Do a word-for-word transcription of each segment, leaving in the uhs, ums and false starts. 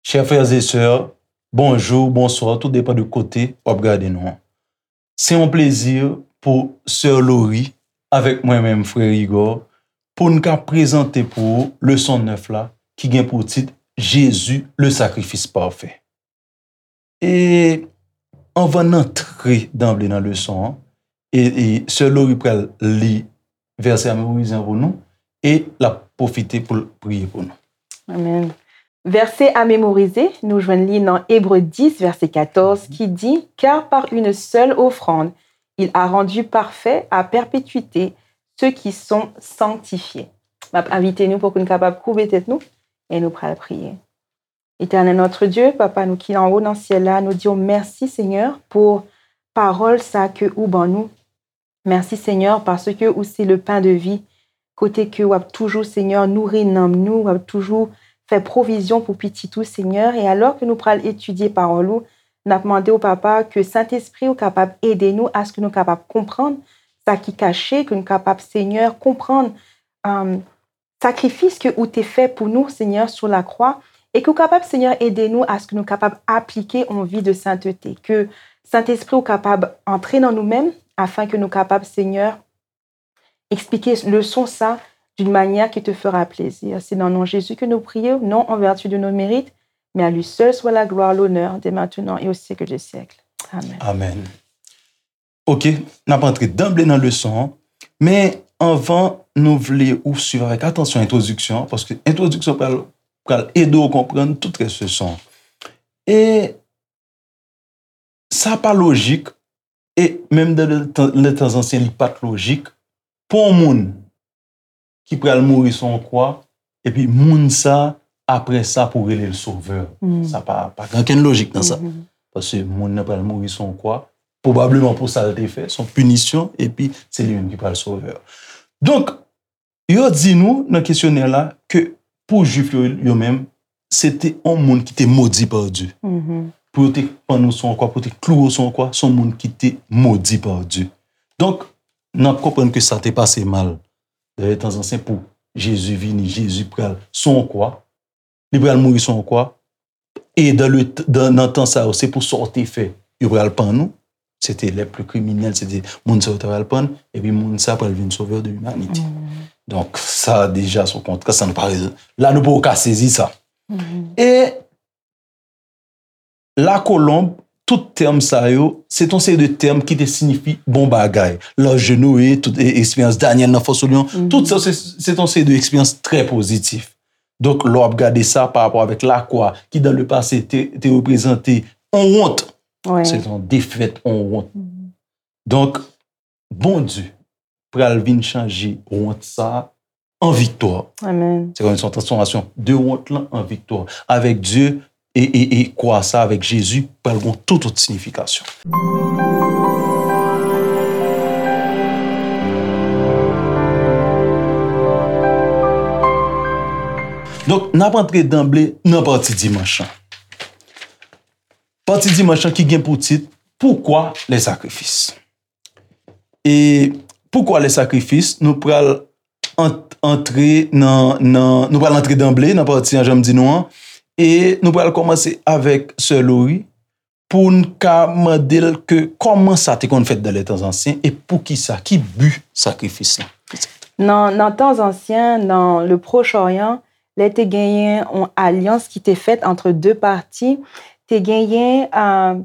Chè frè e sè, bonjou, bonswa, tout depan de kote w ap gade nou an. Se yon plezi pou sè Lori avèk mwen menm, frè Igor, pou n ka prezante pou ou leson nèf la, ki gen pou tit Jésus, le sacrifice parfait. E anvan n antre danble nan leson an, e, e sè Lori pral li vèsè a memorize an pou nou, e l ap pwofite pou l priye pou nou. Amen. Vèsè a memorize, nou jwenn li nan Ebre dis, vèsè katòz, ki di, Car par une seule offrande, il a rendu parfaits à perpétuité ceux qui sont sanctifiés. M ap envite nou pou nou kapab koube tèt nou e nou pral priye. Éternel notre Dieu, Papa nou ki anwo nan syèl la, nou di w mèsi, Senyè, pou pawòl sa ke ou ban nou. Mèsi, Senyè, paske ou se le pain de vie, kote ke w ap toujou, Senyè, nouri nanm nou, w ap toujou fè pwovizyon pou pitit ou, Senyè. E alò ke nou pral etidye pawòl ou, n ap mande w, Papa, ke Sentespri ou kapab ede nou aske nou kapab konprann sa ki kache, ke nou kapab, Senyè, konprann, um, sakrifis ke ou te fè pou nou, Senyè, sou lakwa, e ke ou kapab, Senyè, ede nou aske nou kapab aplike yon vi de sentete, ke Sentespri ou kapab antre nan nou menm, afin ke nou kapab, Senyè, eksplike leson sa d'une manière qui te fera plaisir. C'est dans le nom de Jésus que nous prions, non en vertu de nos mérites, mais à lui seul soit la gloire, l'honneur, dès maintenant et au siècle des siècles. Amen. Amen. Ok, n ap antre danble nan leson an, men anvan nou vle ou swiv avèk atansyon entwodiksyon an, paske entwodiksyon pral, pral ede w konprann tout rès leson an. E sa pa lojik, e menm dan le tan, le tan zansyen, li pa t lojik pou yon moun ki pral mouri sou yon kwa, epi moun sa, apre sa, pou rele l sovè. Sa pa, pa gen okenn lojik nan sa. Paske moun nan pral mouri sou yon kwa, pwobableman pou sa l te fè, se yon pinisyon, epi se li menm ki pral sovè. Donk, yo di nou nan kesyonè la ke pou Jwif yo, yo menm, se te yon moun ki te modi pa Dye. Pou yo te pann ou sou yon kwa, pou yo te klouwe w sou yon kwa, se yon moun ki te modi pa Dye. Donk, n ap konprann ke sa te pase mal. Dayè, tan zansyen pou Jezi vini, Jezi pral sou yon kwa, li pral mouri sou yon kwa, e dan le, dan, nan tan sa yo, se pou sa w te fè, yo pral pann ou. Se te les plus criminels, se te moun sa yo ta pral pann, epi moun sa pral vin sovè de limanite. Donk, sa deja se yon kontrè, sa nou pa, la nou poko ka sezi sa. E lakolonb, tout tèm sa yo, se t on seri de tèm ki te siyifi bon bagay. Laj de Noe, tout e, eksperyans Danyèl nan fò sou lyon, tout sa se, se t on seri de eksperyans trè pozitif. Donk, lè w ap gade sa pa rapò avèk lakwa, ki dan le pase te, te reprezante on wont, se t on defèt, on wont. Donk, Bondye pral vin chanje wont sa an viktwa. Amen. Se kòm se yon transfòmasyon de wont lan an viktwa. Avèk Dye e, e, e kwa sa, avèk Jezi, pral gen tout, tout siyifikasyon. Donk, n ap antre danble nan pati dimanch lan. Pati dimanch lan ki gen pou tit, Pourquoi les sacrifices? E pourquoi les sacrifices, nou pral ant, antre nan, nan, nou pral antre danble nan pati an, jan m di nou an, e nou pral kòmanse avèk sè Lori pou n ka mande l ke kòman sa te konn fèt dan le tan zansyen e poukisa, ki bi sakrifis lan. Nan, nan tan zansyen, nan le Proche Orient, lè te genyen yon alyans ki te fèt ant de pati, te genyen, euh,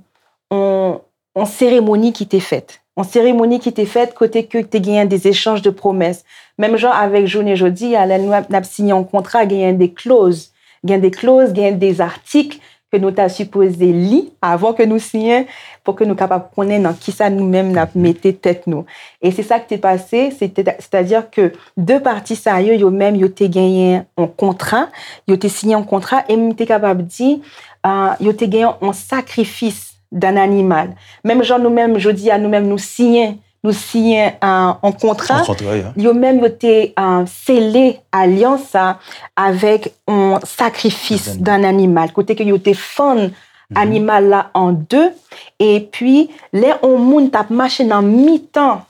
yon, yon seremoni ki te fèt. Yon seremoni ki te fèt kote ke te genyen des échanges de promesses. Menm jan avèk jounen jodi a, lè nou ap, n ap siyen yon kontra, genyen de kloz. Gen de kloz, genyen de atik ke nou ta sipoze li avan ke nou siyen, pou ke nou kapab konnen nan kisa nou menm n ap mete tèt nou. E se sa ki te pase, se te, sètadi ke de pati sa yo, yo menm, yo te genyen yon kontra, yo te siyen yon kontra, e m te kapab di, ah, yo te genyen yon sakrifis d'un animal. Menm jan nou menm, jodi a, nou menm, nou siyen, nou siyen, ah, yon kontra, Yon kontra, ya. Yo menm, yo te, ah, sele alyans sa avèk yon sakrifis d'un animal, kote ke yo te fann animal la an de, epi lè yon moun t ap mache nan mitan,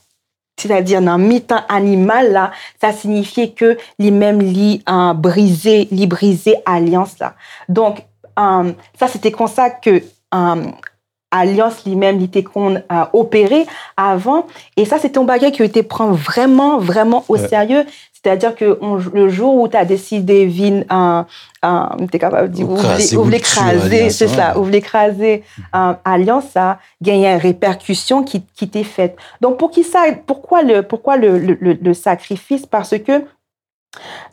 sètadi nan mitan animal la, sa siyifye ke li menm li, ah, brize, li brize alyans la. Donk, Um, sa se te konsa ke um, alyans li menm li te konn uh, opere avan. E sa se te yon bagay ke yo te pran vrèman, vrèman o serye. Sètadi ke on, le jou ou ta deside vin, uh, uh, m te kapab di, ou vle kraze, se sa, ou vle kraze uh, alyans sa, genyen repèkisyon ki, ki te fèt. Donk, poukisa, pourquoi le, pourquoi le, le, le, le sacrifice? Parce que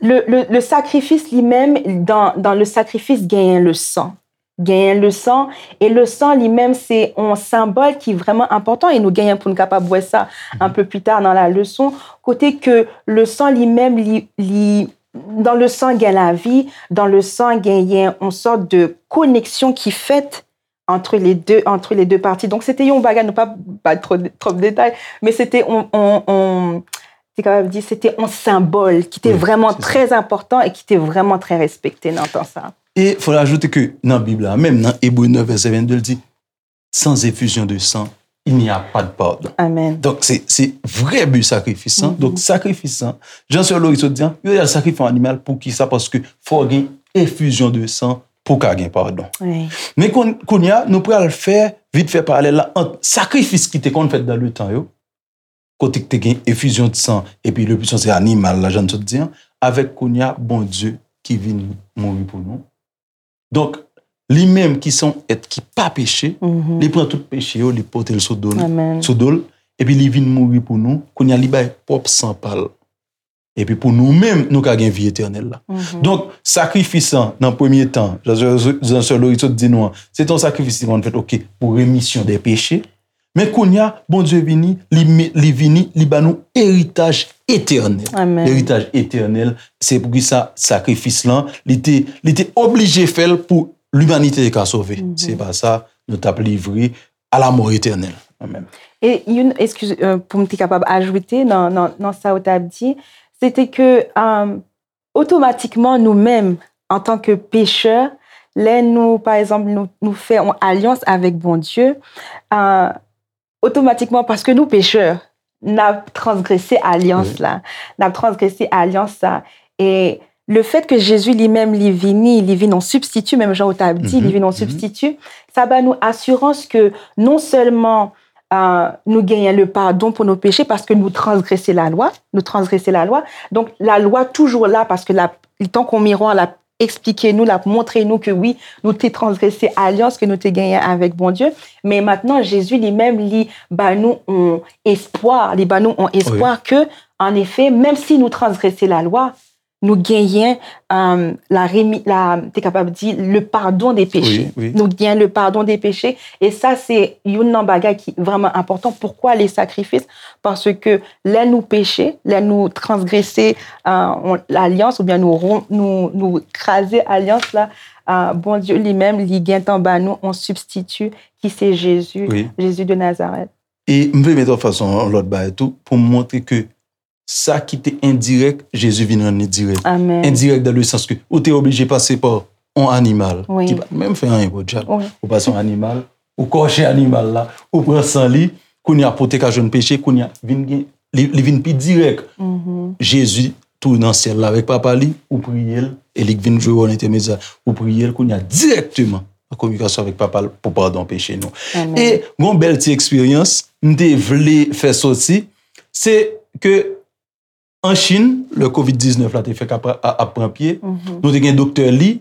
le, le, le sacrifice li menm, dans, dans le sacrifice, genyen le san. Genyen le san, e le san li menm, se yon senbòl ki vrèman enpòtan, e nou genyen pou nou kapab wè sa un peu plus tard dans la leçon, kote ke le san li menm, li, li, dans le sang gen lavi, dans le sang genyen yon sòt de koneksyon ki fèt entre les deux, entre les deux parties. Donk, se te yon bagay, nou pa bay twòp, twòp detay, men se te yon, yon, yon, te kapab di, se te yon senbòl ki te vrèman trè enpòtan e ki te vrèman trè respekte nan tan sa. E fò ajoute ke nan Bib la, menm nan Ebre nèf vèsè vennde, l di, sans effusion de sang, il n'y a pas de pardon. Amen. Donk, se, se vrè bi sakrifis lan. Donk, sakrifis lan, jan sè Lori sot di an, yo al sakrifye yon animal. Poukisa? Paske fò gen efizyon de san pou ka gen padon. Men kounye a, nou pral fè vit fè paralèl la ant sakrifis ki te konn fèt dan letan yo, kote ki te gen efizyon de san, epi le pwisan se animal la, jan n sot di an, avèk kounye a, Bondye ki vin mouri pou nou. Donk, li menm ki se yon èt ki pa peche, li pran tout peche yo, li pote l sou do l, sou do l, epi li vin mouri pou nou, kounye a li bay pwòp san pa l. Epi pou nou menm, nou ka gen vi etènèl la. Donk, sakrifis lan, nan premye tan, jan, jan sè Lori sot di nou an, se te yon sakrifis ki konn fèt, oke, pou remisyon de peche. Men kounye a, Bondye vini, li, li vini, li ba nou eritaj etènèl. Eritaj etènèl, se poukisa sakrifis lan, li te, li te oblije fè l pou limanite te ka sove. Se pa sa, nou t ap livre a la mò etènèl. Amen. E youn, eskize, pou m te kapab ajoute nan, nan, nan sa ou t ap di, se te ke, otomatikman, nou menm, antanke pechè, lè nou, pa egzanp, nou, nou fè yon alyans avèk Bondye, otomatikman, paske nou pechè, n ap transgrese alyans la. N ap transgrese alyans la. E le fèt ke Jezi li menm li vini, li vin yon sibstiti, menm jan ou t ap di, li vin yon sibstiti, sa ba nou asirans ke non sèlman nou genyen le padon pou nou peche paske nou transgrese lalwa, nou transgrese lalwa. Donk, lalwa toujou la paske l ap, li tankou yon miwa, l ap eksplike nou, l ap montre nou ke wi, nou te transgrese alyans ke nou te genyen avèk Bondye. Men mentnan, Jezi li menm, li ba nou yon espwa, li ba nou yon espwa ke, anefè, menm si nou transgrese lalwa, nou genyen la remi, la, te kapab di, le pardon des péchés. Nou genyen le pardon des péchés. E sa, se youn nan bagay ki vrèman enpòtan. Poukwa le sakrifis? Paske lè nou peche, lè nou transgrese lalyans oubyen nou, nou, nou kraze alyans la, Bondye li menm, li gentan ba nou yon sibstiti ki se Jezi, Jezi de Nazarèt. E m vle met an fas yon lòt bagay tou pou m montre ke sa ki te endirèk, Jezi vin rann li dirèk. Endirèk dan le sans ke ou te oblije pase pa yon animal ki pa t menm fè anyen pou dyab. Ou pase yon animal, ou kòche animal la, ou pran san li, kounye a pou w te ka jwenn peche, kounye a vin gen, li, li vin pi dirèk. Jezi tou nan syèl la avèk Papa li, ou priye l, e li k vin jwe wòl entèmedyè. Ou priye l, kounye a dirèkteman an kominikasyon avèk Papa l pou padon peche nou. E gon bèl ti eksperyans m te vle fè soti, se ke an Chin, lè kovid diznèf la te fèk ap, ap pran pye, nou te gen doktè Li.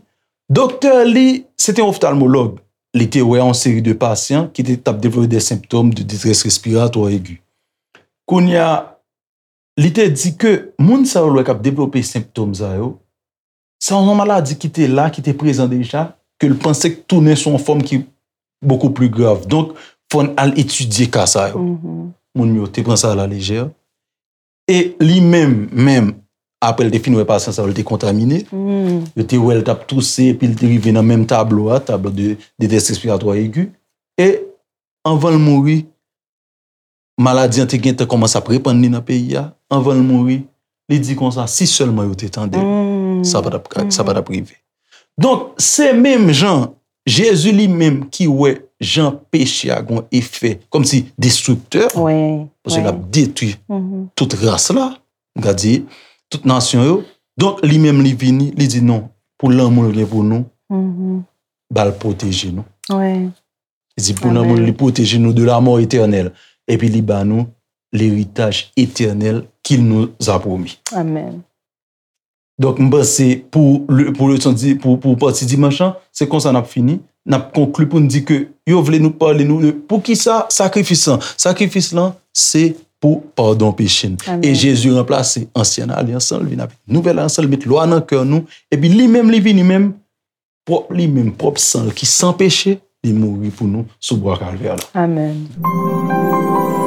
Doktè Li, se te yon oftalmològ. Li te wè yon seri de pasyan ki te, t ap devlope de senptòm de detrès respiratwa egi. Kounye a, li te di ke moun sa yo l wè k ap devlope senptòm sa yo, se yon maladi ki te la, ki te prezan deja, ke l panse k tounen sou yon fòm ki bokou pli grav. Donk, fò n al etidye ka sa yo. Moun yo te pran sa a la lejè. E li menm, menm, apre l te fin wè pasyan sa yo, l te kontamine. Yo te wè l t ap touse, epi l te rive nan menm tablo a, tablo de, de detrès respiratwa egi. E anvan l mouri, maladi an te gentan kòmanse ap repann li nan peyi a. Anvan l mouri, li di konsa, si sèlman yo te tande m, sa pa t ap, sa pa t ap rive. Donk, se menm jan Jezi li menm ki wè jan peche a gon efè kòmsi destriktè, paske l ap detwi tout ras la, m ka di, tout nasyon yo. Donk, li menm li vini, li di non, pou lanmou l gen pou nou, ba l pwoteje nou. Wi. Li di pou lanmou li pwoteje nou de la mort éternelle. Epi li ba nou l'héritage éternel qu'il nous a promis. Amen. Donk, m panse pou, pou leson, pou, pou pati dimanch lan, se konsa n ap fini. N ap konkli pou n di ke yo vle nou pale nou de pou ki sa sakrifis lan. Sakrifis lan, se pou padon peche n. E Jezi ranplase ansyen alyans lan, li vin avèk nouvèl alyans lan, li met lwa nan kè nou, epi li menm, li vini menm, pwòp li menm, pwòp san l ki san peche, li mouri pou nou sou bwa Kalvè la. Amen.